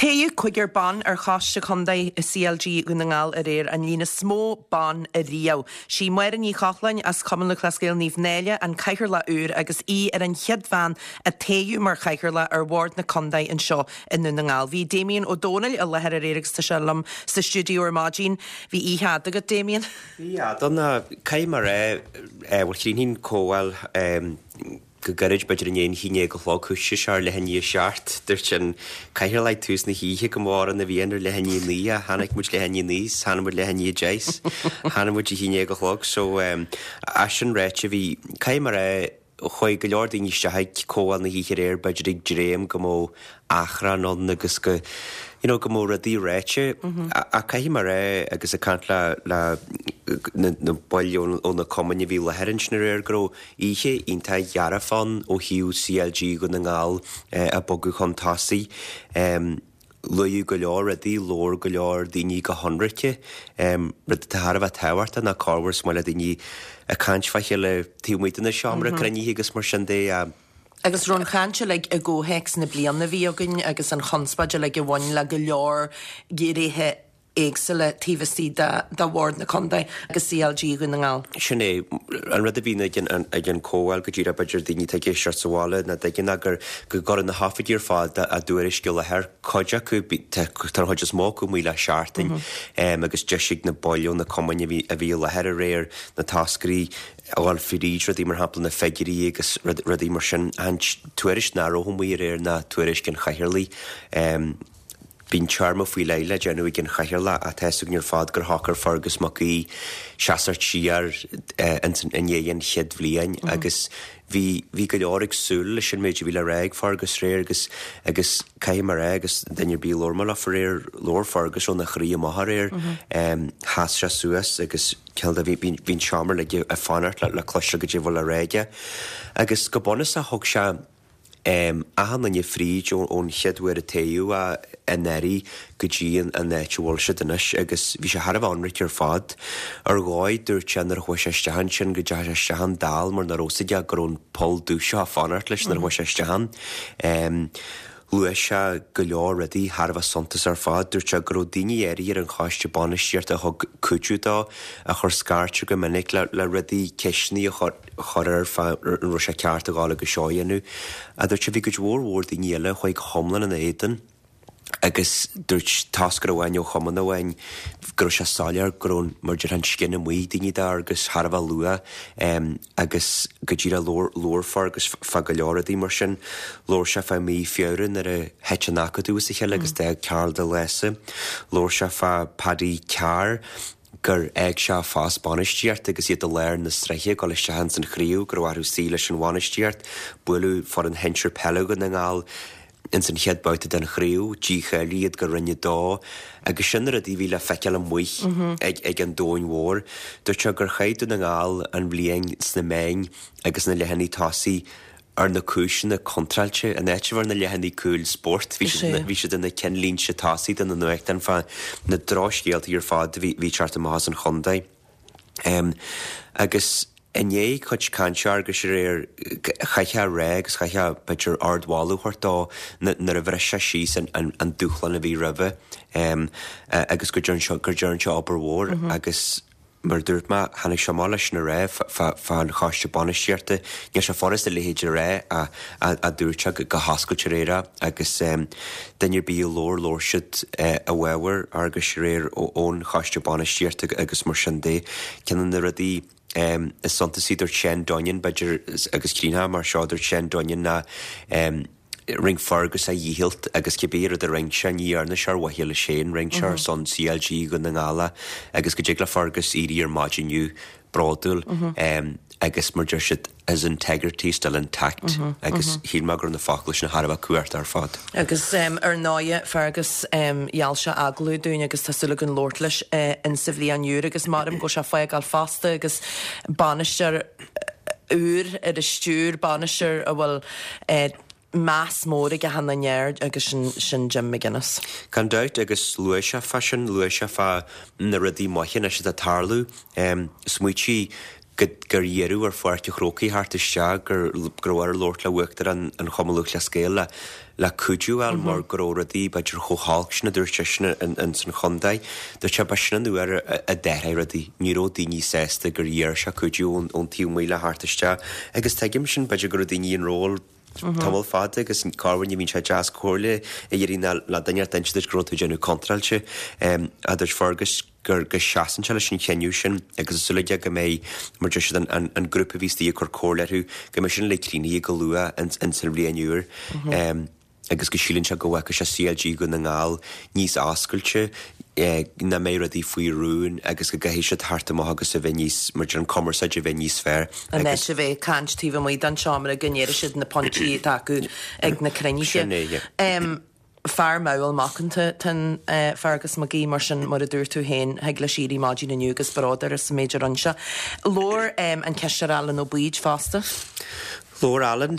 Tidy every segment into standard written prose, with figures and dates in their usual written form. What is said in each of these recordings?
Toghadh cúigear ban ar Choiste Contae CLG Dhún na nGall aréir, an líon is mó ban ariamh. Sí Máire Ní Chochláin as Cumann Lúthchleas Gael Naomh Náille an cathaoirleach úr agus í ar an chéad bhean a toghadh mar chathaoirleach ar bhord na contae anseo i nDún na nGall. Bhí Damien Ó Dónaill i láthair aréir agus tá sé liom sa stiúideo ar maidin. Bhí oíche fhada agat, Damien. Bhí fhada ná caithfidh mé a rá, bhuel chríochnaigh an comhdháil go gairid, b'fhéidir i ndiaidh an haon déag a chlog, thoisigh sé ar leath i ndiaidh a seacht, dúirt an cathaoirleach ag tús na hoíche go mba orainn a bhí ann ar leath i ndiaidh a naoi ach tháinig muid leath i ndiaidh a naoi 's tháinig muid leath i ndiaidh a deich 's tháinig muid a haon déag a chlog so as sin ráite bhí, caithfidh mé a rá, chuaigh go leor daoine isteach ag comhdháil na hoíche aréir b'fhéidir ag dréim go mbeadh achrann ann agus go you know go mbeadh rudaí ráite ach caithfidh mé a rá agus ag caint le le na na baill ó na cumainn a bhí i láthair ansin aréir go raibh oíche iontach dhearfach ann ó thaobh CLG Dhún na nGall ag bogadh chun tosaigh. Luadh go leor rudaí, labhair go leor daoine go hionraice. Rud atá thar a bheith tábhachtach ná corruair is maith le daoine ag caint fá chéile taobh amuigh de na seomra cruinnithe agus mar sin de. Agus raibh an chaint uilig i gcomhthéacs na bliana a bhí againn agus an chonspóid uilig a bhain le go leor gnéithe éagsúla taobh istigh de Bhord na Contae agus CLG Dhún na nGall. Sin é. An rud a bhíonn ag an ag an comhdháil go díreach b'fhéidir daoine atá ag éisteacht sa bhaile nach dtuigeann ná gur go gcuireann na hoifigigh ar fad a dtuairisc i láthair, cuid acu, tá an chuid is mó acu amuigh le seachtain agus deis ag na baill ó na cumainn a bhí a bhí i láthair aréir na toscairí a dhul fríd rudaí mar shampla na figiúirí agus rudaí mar sin. An tuairisc nach raibh amuigh aréir ná tuairisc an chathaoirligh. Bíonn téarma faoi leith le déanamh ag an chathaoirleach ach tá 'fhios againn ar fad gur shocair Fergus Mac Aoidh seasamh siar i ndiaidh an chéad bhliain agus bhí bhí go leor ag súil leis an méid a bhí le rá ag Fergus aréir agus agus caithfidh mé a rá agus duine ar bith a labhair mé leofa aréir labhair Fergus óna chroí amach aréir. Sheas sé suas agus cineál de bhí bhí an seomra uilig ag fanacht le le cloisteáil goidé a bhfuil le rá aige agus go bunúsach thug sé achan duine fríd ón chéad uair a toghadh é anuraidh go dtí an áit a bhfuil siad anois agus bhí sé thar a bheith ionraic ar fad. Ar dhóigh, dúirt sé nuair a chuaigh sé isteach ansin go dteachaigh sé isteach ann dall mar nach raibh 'fhios aige go raibh an poll dubh seo ag fanacht leis nuair a chuaigh sé isteach ann. Luaigh sé go leor rudaí thar a bheith suntasach ar fad. Dúirt sé go raibh daoine áirithe ar an choiste bainistíochta a thug cuidiú dó, a chuir scairt air go minic le rudaí, ceisteanna a chur. chur air fá an raibh sé ceart a ghabháil agus seo a dhéanamh. Ach dúirt sé bhí cuid mhór mhór daoine eile a chuaigh go hiomlán ina éadan agus dúirt toscaire amháin ó chumann amháin go raibh sé soiléir go raibh mar a déarfá an scian amuigh ag daoine d'Fheargus thar a bheith luath agus go díreach labhair labhair Fergus fá go leor rudaí mar sin. Labhair sé fá mí Feabhra nuair a thit an Acadamh as a chéile agus d'fhág Karl de Lása. Labhair sé fá Paddy Carr. gur fhág sé a phost bainistíochta agus iad i lár na sraithe ag dul isteach ins an chraobh, go raibh orthu suí leis an bhainistíocht. Buaileadh foireann shinsir peile Dhún na nGall ins an chéad babhta den chraobh, dícháilíodh iad go Roinn 2 agus sin na rudaí a bhí le feiceáil amuigh ag ag an domhain mhór. Dúirt sé gur chaith Dún na nGall an bhliain sna meáin agus na leathanaigh tosaigh ar na cúiseanna contráilte, in áit a bheith ar na leathanaigh cúil spóirt, bhí siad bhí siad ina cinnlínte tosaigh de na nuachtáin fá na drochscéaltaí ar fad a bhí bhí ag teacht amach as an chontae. Agus i ndiaidh cuid cainte Fhearghuis aréir, chaithfeá a rá agus chaithfeá b'fhéidir ardmholadh a thabhairt dó nuair a bhris sé síos an an an dúshlán a bhí roimhe agus go dtearn sé go dtearn sé obair mhór agus Mar a dúirt mé, tháinig sé amach leis sin a rá fán choiste bainistíochta. Níl sé furasta a leithéid a rá ach dúirt sé go hoscailte aréir é agus duine ar bith a labhair, labhair siad i bhfabhar Fhearghuis aréir ón choiste bainistíochta agus mar sin de. Ceann de na rudaí is suntasaí, dúirt Shane Dunnion, b'fhéidir, agus críochnóidh mé ar seo, dúirt Shane Dunnion ná, Rinne Fergus a dhícheall agus cibé rud a rinne sé, ní dhearna sé ar mhaithe leis féin, rinne sé ar son CLG Dhún na nGall é agus go dtig le Fergus éirí ar maidin inniu bródúil agus mar deir siad his integrity still intact agus shíl mé go raibh na focail sin thar a bheith cumhachtach ar fad. Agus ar ndóighe Fergus gheall sé agallamh dúinn agus tá súil againn labhairt leis insa bhliain úr agus maram go bhfuil sé ag fágáil fosta agus bainisteoir úr ar an stiúir, bainisteoir a bhfuil meas mór ag achan duine air agus sin Jim McGuinness. Gan dabht, agus luaigh sé fá sin, luaigh sé fá na rudaí maithe anois atá ag tarlú. Smaoitigh. go gur iarradh ar Pháirc an Chrócaigh theacht isteach, gur go raibh air labhairt le Uachtarán an Chumann Lúthchleas Gael le le cuidiú a fháil mar go raibh rudaí b'fhéidir chomh holc sin a dúirt seisean ins an chontae. Dúirt sé ba sin an uair a d'athraigh rudaí. Ní raibh daoine sásta gur iarr sé cuidiú ón taobh amuigh le theacht isteach agus tuigim sin, b'fhéidir go raibh daoine i ról tamall fada agus corruair ní bhíonn sé deas comhairle a iarraidh ná le duine inteacht d'inse duit go raibh tú ag déanamh contráilte. A dúirt Fergus gur go seasann sé leis an chinneadh sin agus tá súil aige go mbeidh, mar deir siad, an an grúpa a bhí istigh ag cur comhairle orthu, go mbeidh sin uilig críochnaithe go luath ins an bhliain úr. Agus go síleann sé go bhfeicfidh sé CLG Dhún na nGall níos oscailte, nach mbeidh rudaí faoi rún agus go gcaithfidh siad theacht amach agus a bheith níos, mar deir an cumarsáid a bheith níos fearr. In áit a bheith ag caint taobh amuigh den seomra go ndéarfaidh siad na pointí atá acu ag na cruinnithe. Sin é, yeah. Fear mall macánta atá in Fergus McGee, mar sin, mar a dúirt tú féin, thig leis éirí maidin inniu agus bród air as an méid a rinne sé. Labhair an Cisteoir Alan Ó Baoid fosta. Labhair Alan.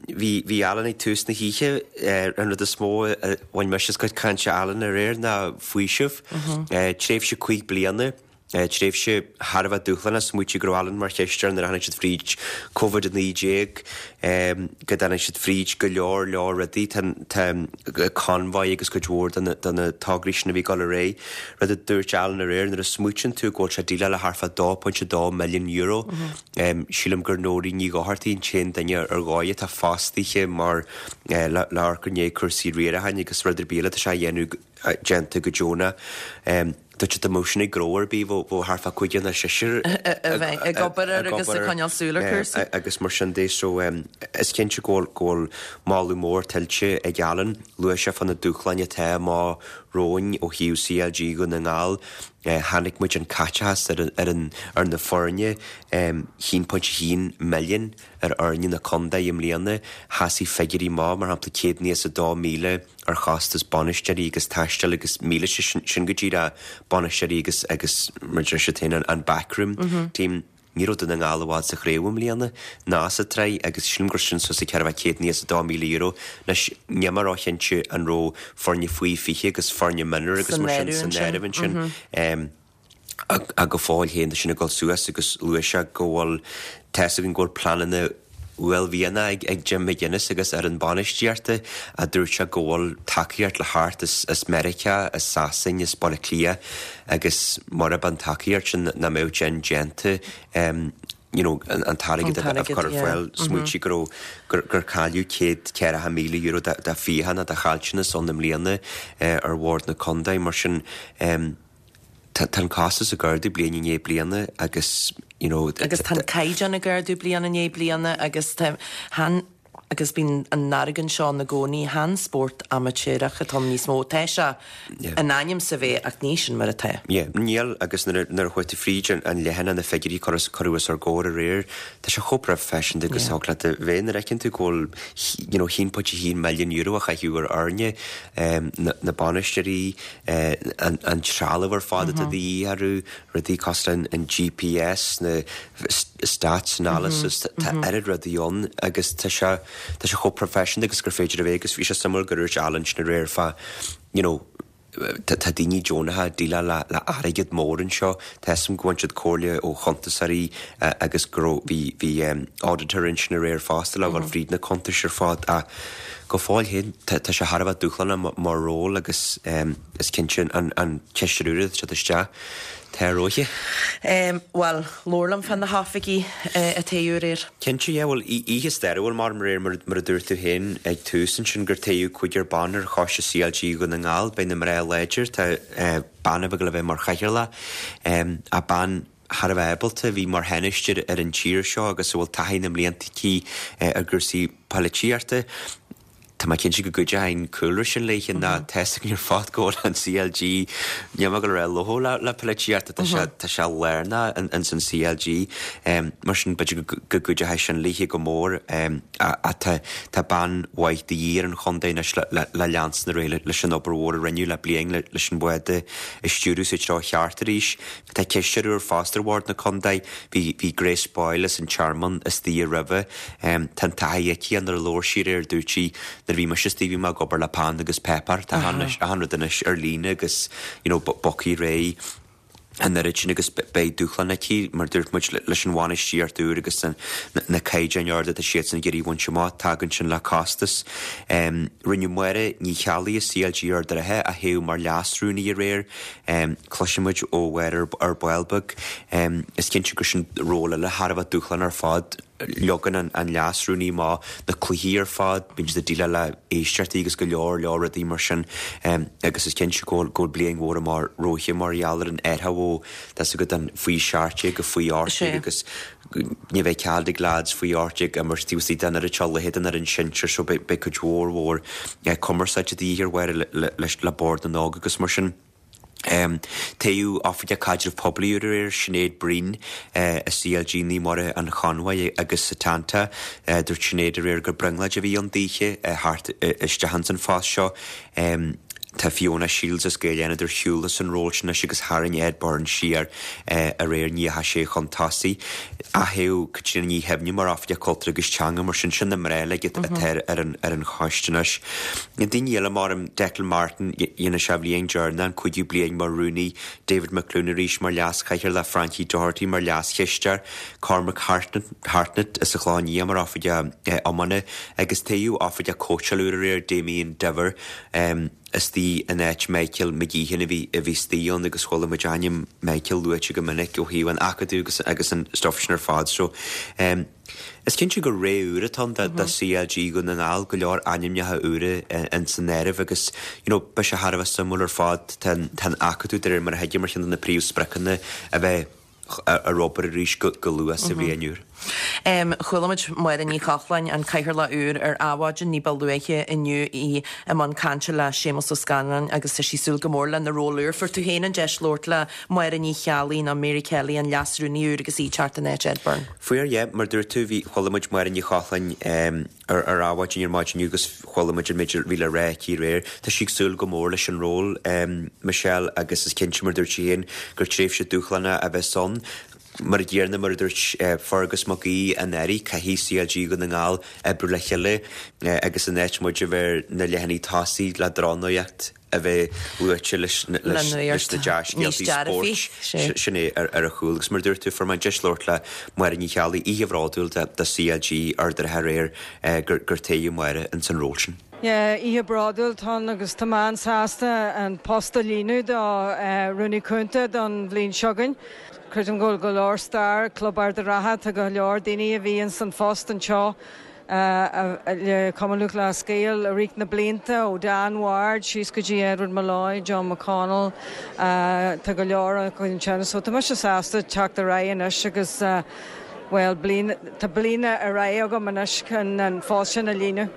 Bhí, bhí Alan ag tús na hoíche. An rud is mó a bhain mise as cuid cainte Alan aréir ná faoiseamh. Tréimhse 5 bliana. Tréimhse thar a bheith dúshlánach, smaoitigh go raibh Alan mar chisteoir nuair a tháinig siad fríd Covid-19, go dtáinig siad fríd go leor leor rudaí, tá convoy agus cuid mhór de na tograí sin a bhí ag dul ar aghaidh. Rud a dúirt Alan aréir, nuair a smaoitíonn tú go bhfuil sé ag déileáil le thart fá €2.2 milliún, sílim gur Nóirín Ní Dhochartaigh an t-aon duine ar dhóigh atá fostaithe mar le amharc i ndiaidh cúrsaí riaracháin agus rud ar bith eile atá sé a dhéanamh déanta go deonach. Dúirt sé dá mbeadh sin ag gnó ar bith, bheadh thart fá cúigear nó seisear a bheith ag obair air agus ag coinneáil súil ar chúrsaí. Agus mar sin de, so is cinnte go bhfuil moladh mór tuillte ag Alan. Luaigh sé fá na dúshláin atá amach romhainn ó thaobh CLG Dhún na nGall. Chonaic muid an caiteachas ar an ar na foirne, 1.1 milliún ar fhoirne na contae i mbliana. Sheasaigh figiúirí maith, mar shampla 192,000 ar chostas bainisteoirí agus taistil agus míleata, sin go díreach bainisteoirí agus agus mar deir siad féin an backroom team. Ní raibh Dún na nGall i bhfad sa chraobh i mbliana ná sa tsraith agus sílim gur sin suas ag €492,000. Anois níl mé róchinnte an raibh foirne faoi 20 agus foirne mionúir agus mar sin san áireamh ansin. Ach go fóill féin tá sin ag dul suas agus luaigh sé go bhfuil, tá 'fhios againn go bhfuil pleananna uaillmhianacha ag Jim McGuinness agus fhoireann bainistíochta a dúirt sé go bhfuil tacaíocht le theacht as Meiriceá, as Sasain, as Baile Átha Cliath agus murab an tacaíocht sin nach mbeadh sin déanta you know an t-airgead a chur ar fáil. Smaoitigh go raibh, gur cailleadh €140,000 de fiacha nó de chaillteanas ann i mbliana ar bhord na contae mar sin Tá an costas ag ardú bliain i ndiaidh bliana agus you know. Agus tá an caighdeán ag ardú bliain i ndiaidh bliana agus tá, chan, agus bíonn an argóint seo ann i gcónaí, chan spórt amaitéarach atá ann níos mó. Tá sé in ainm is a bheith ach ní sin mar atá. Yeah, níl agus nuair a nuair a chuaigh tú fríd an leathanach na figiúirí a cuireadh os ár gcomhair aréir, tá sé chomh proifisiúnta agus thig leat a bheith nuair a fheiceann tú go bhfuil you know €1.1 milliún a chaitheamh ar fhoirne, na bainisteoirí, an trealamh ar fad atá de dhíth orthu, rudaí cosúil le an GPS, na stats analysis, tá oiread rudaí ann agus tá sé, tá sé chomh proifisiúnta agus gur féidir a bheith agus bhí sé suimiúil gur dhúirt Alan sin aréir fá, you know, tá daoine deonacha ag déileáil le le airgead mór anseo, tá 'fhios a'm go bhain siad comhairle ó chuntasóirí agus go raibh, bhí, bhí auditor ansin aréir fosta le dhul fríd na cuntais ar fad ach Go fóill féin, tá sé thar a bheith dúshlánach mar ról agus is cinnte an cisteoir úr atá ag teacht isteach, tá a rogha. Bhuel, labhair liom fá na hoifigigh a toghadh aréir. Cinnte, yeah, bhuel, oíche stairiúil mar aréir, mar a dúirt tú féin ag tús ansin, gur toghadh cúigear ban ar choiste CLG Dhún na nGall. Beidh na mná láidir, tá bean a bheidh le bheith mar chathaoirleach, ach bean, thar a bheith ábalta, a bhí mar Thánaiste ar an tír seo agus a bhfuil taithí na mblianta aici ar gcúrsaí poilitíochta. Tá mé cinnte go gcuideoidh an cúlra sin léi ná tá 'fhios againn ar fad go bhfuil an CLG, níl mé ag dul a rá lofa le polaitíocht, tá sé tá sé lárnach ins an CLG. Mar sin b'fhéidir go gcuideoidh sin léi go mór ach tá tá bean mhaith de dhíth ar an chontae anois le le leanstan ar aghaidh leis an obair mhór a rinneadh le bliain leis an bhád a stiúradh sa treo cheart arís. Tá cisteoir úr fosta ar bhord na contae. Bhí bhí Grace Boyle as an Tearmann istigh roimhe. Tá an taithí aici nuair a labhair sí aréir dúirt sí nuair a bhí mise istigh bhí mé ag obair le peann agus páipéar. Tá achan rud anois ar líne agus you know bogthaí réidh. An oiread sin agus beidh dúshlán aici, mar dúirt muid, leis an bhainistíocht úr agus na caighdeáin arda atá siadsan ag iarraidh a bhaint amach, tagann sin le costas. Rinneadh Máire Ní Cheallaigh as CLG Ard an Rátha a thoghadh mar Leas-Rúnaí aréir. Cloisfidh muid ó Mháire ar ball beag. Is cinnte gur sin ról eile thar a bheith dúshlánach ar fad. Leagann an leas-rúnaí amach na cluichí ar fad, bíonn siad ag déileáil le éisteachtaí agus go leor leor rudaí mar sin agus is cinnte go bhfuil bliain mhór amach romhaithe mar gheall ar an athrú ó tá 's agat an faoi 17 go faoi 18 agus ní bheidh cead ag leaids faoi 18 imirt taobh istigh den oiread seo cluiche den fhoireann sinsir so beidh cuid mhór mhór cumarsáide de dhíth ar Mháire le Bord na nÓg agus mar sin. Toghadh Oifigeach Caidreamh Poiblí úr aréir, Sinéad Breen, i CLG Naomh Muire an Chonbhaigh agus Setanta. Dúirt Sinéad aréir gur brionglóid a bhí ann daoithe theacht isteach ins an phost seo. Tá Fiona Shields as Gaeil Fhánada ar shiúl as an ról sin anois agus tharraing Ed Byrne siar aréir, ní dheachaigh sé chun tosaigh. Atoghadh Caitríona Ní Shuibhne mar Oifigeach Cultúir agus Teanga, mar sin, sin na mná uilig atá ar an choiste anois. Na daoine eile mar Declan Martin, dhéanfaidh sé a bhliain deireanach, an cúigiú bliain mar rúnaí, David McLoone arís mar leas-chathaoirleach, Frankie Doherty mar leas-chisteoir, Cormac Hartnett as an Chlochán Liath mar Oifigeach Iomána agus toghadh Oifigeach Cóitseála úr aréir, Damien Diver. Istigh in áit Michael McGeehan a bhí a bhí istigh ann agus chuala muid ainm Michael luaite go minic ó thaobh an acadamh agus agus an stuff sin ar fad so em is cinnte gur ré úr atá ann do do CLG Dhún na nGall, go leor ainmneacha úra in san áireamh agus you know beidh sé thar a bheith suimiúil ar fad tá an tá an acadamh de réir mar a thuigim ar cheann de na príomhspriocanna a bheith ar obair arís go luath sa bhliain úr. Chuala muid Máire Ní Chochláin, an Cathaoirleach úr, ar Adhmhaidin ní ba luaithe inniu, í i mbun cainte le Séamus Ó Scanláin agus tá sí ag súil go mór lena ról úr. Fuair tú féin an deis labhairt le Máire Ní Cheallaigh nó Mary Kelly, an Leas-Rúnaí úr agus í ag teacht in áit Ed Byrne. Fuair, yeah. Mar dúirt tú, bhí, chuala muid Máire Ní Chochláin ar ar Adhmhaidin ar maidin inniu agus chuala muid an méid a bhí le rá aici aréir. Tá sí ag súil go mór leis an ról, Michelle, agus is cinnte, mar dúirt sí féin, gur tréimhse dúshlánach a bheas ann. Mar a chéanna, mar a dúirt Fergus Mac Aoidh anuraidh, caithfidh CLG Dhún na nGall oibriú le chéile agus in áit muid a bheith ar na leathanaigh tosaigh le drochnuacht a bheith luaite leis na dea-scéaltaí spóirt, sin é ar a chúl. Agus mar a dúirt tú, fuair mé an deis labhairt le Máire Ní Cheallaigh, oíche bhródúil do CLG Ard an Rátha aréir gur toghadh Máire ins an ról sin. Yeah, oíche bhródúil atá ann agus tá mé an-sásta an post a líonadh do Rúnaí Cúnta don bhliain seo chugainn. Creidim go bhfuil go leor stair ag Club Ard an Rátha, tá go leor daoine a bhí ins an phost anseo le Cumann Lúthchleas Gael i rith na blianta, ó Dan Ward síos go dtí Edward Molloy, John McConnell, tá go leor acu ansin. So tá mise sásta teacht ar aghaidh anois agus bhuel bliain, tá bliain ar aghaidh agam anois chun an phost sin a líonadh.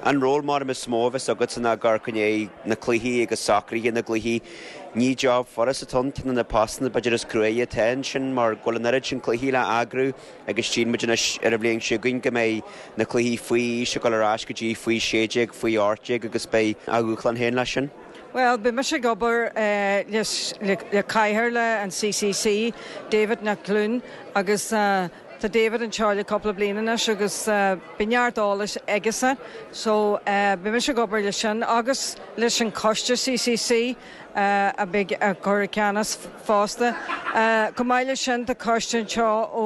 An ról mar is mó a bheas agatsa ná ag amharc i ndiaidh na cluichí agus socruithe na gcluichí. Ní job furast atá ann, ceann de na postanna b'fhéidir is cruaidhe atá ansin mar go bhfuil an oiread sin cluichí le eagrú. Agus tchíonn muid anois ar an bhliain seo chugainn go mbeidh na cluichí faoi aois ag dul ar ais go dtí faoi 16, faoi 18 agus beidh a dhúshlán féin leis sin. Bhuel, beidh mise ag obair le cathaoirleach an CCC, David McLoone, agus tá David anseo le cúpla bliain anois agus beidh neart eolais aigesan. So, beidh mise ag obair leis sin agus leis an choiste CCC. a bheidh á chur i gceannas fosta. Chomh maith leis sin tá coiste anseo ó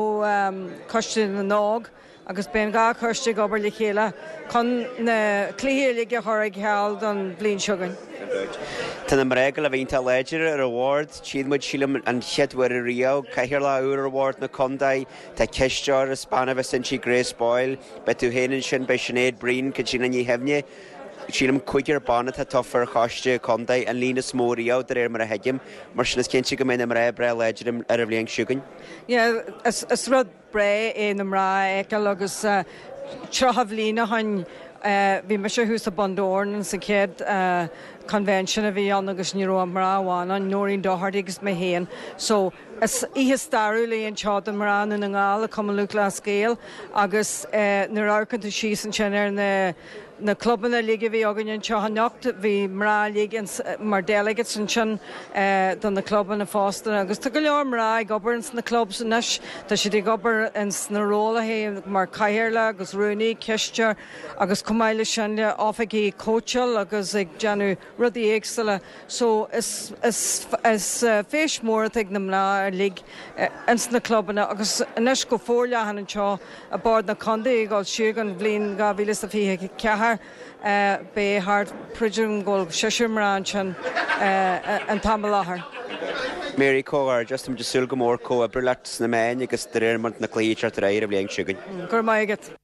Choiste na nÓg agus beidh an dá choiste ag obair le chéile chun na cluichí uilig a chur ar ceal don bhliain seo chugainn. Tá na mná ag dul a bheith iontach láidir ar an bhord. Tchíonn muid, sílim, an chéad uair ariamh, cathaoirleach úr ar bhord na contae. Tá cisteoir is bean a bheas inti, Grace Boyle. Beidh tú féin ansin, beidh Sinéad Breen, Caitríona Ní Shuibhne. Sílim cúigear ban atá tofa ar choiste contae, an líon is mó riamh de réir mar a thuigim. Mar sin is cinnte go mbeidh na mná breá láidir ar an bhliain seo chugainn. Yeah, is rud breá é na mná a fheiceáil agus 30 bhliain ó shoin bhí mise thuas i Bundoran ins an chéad convention a bhí ann agus ní raibh ach mná amháin ann, Noreen Doherty agus mé féin. So is oíche stairiúil í anseo do mná Dhún na nGall i Cumann Lúthchleas Gael agus nuair a amharcann tú síos ansin ar na. Na clubanna uilig a bhí againn anseo anocht, bhí mná uilig mar delegates ansin do na clubanna fosta agus tá go leor mná ag obair ins na clubs anois. Tá siad ag obair ins na rólaithe mar cathaoirleach agus rúnaí, cisteoir agus chomh maith leis sin le oifigigh cóitseáil agus ag déanamh rudaí éagsúla. So is is is feis mór atá ag na mná uilig ins na clubanna agus anois go forleathan anseo i Bord na Contae ag dul siar don bhliain 2024 beidh thart creidim go bhfuil seisear mná ansin an t-am i láthair. Mary, Comhghairdeas, táimid ag súil go mór comhoibriú leat sna meáin agus de réir mar na cluichí ag teacht ar aghaidh ar an bhliain seo chugainn. Go raibh maith agat.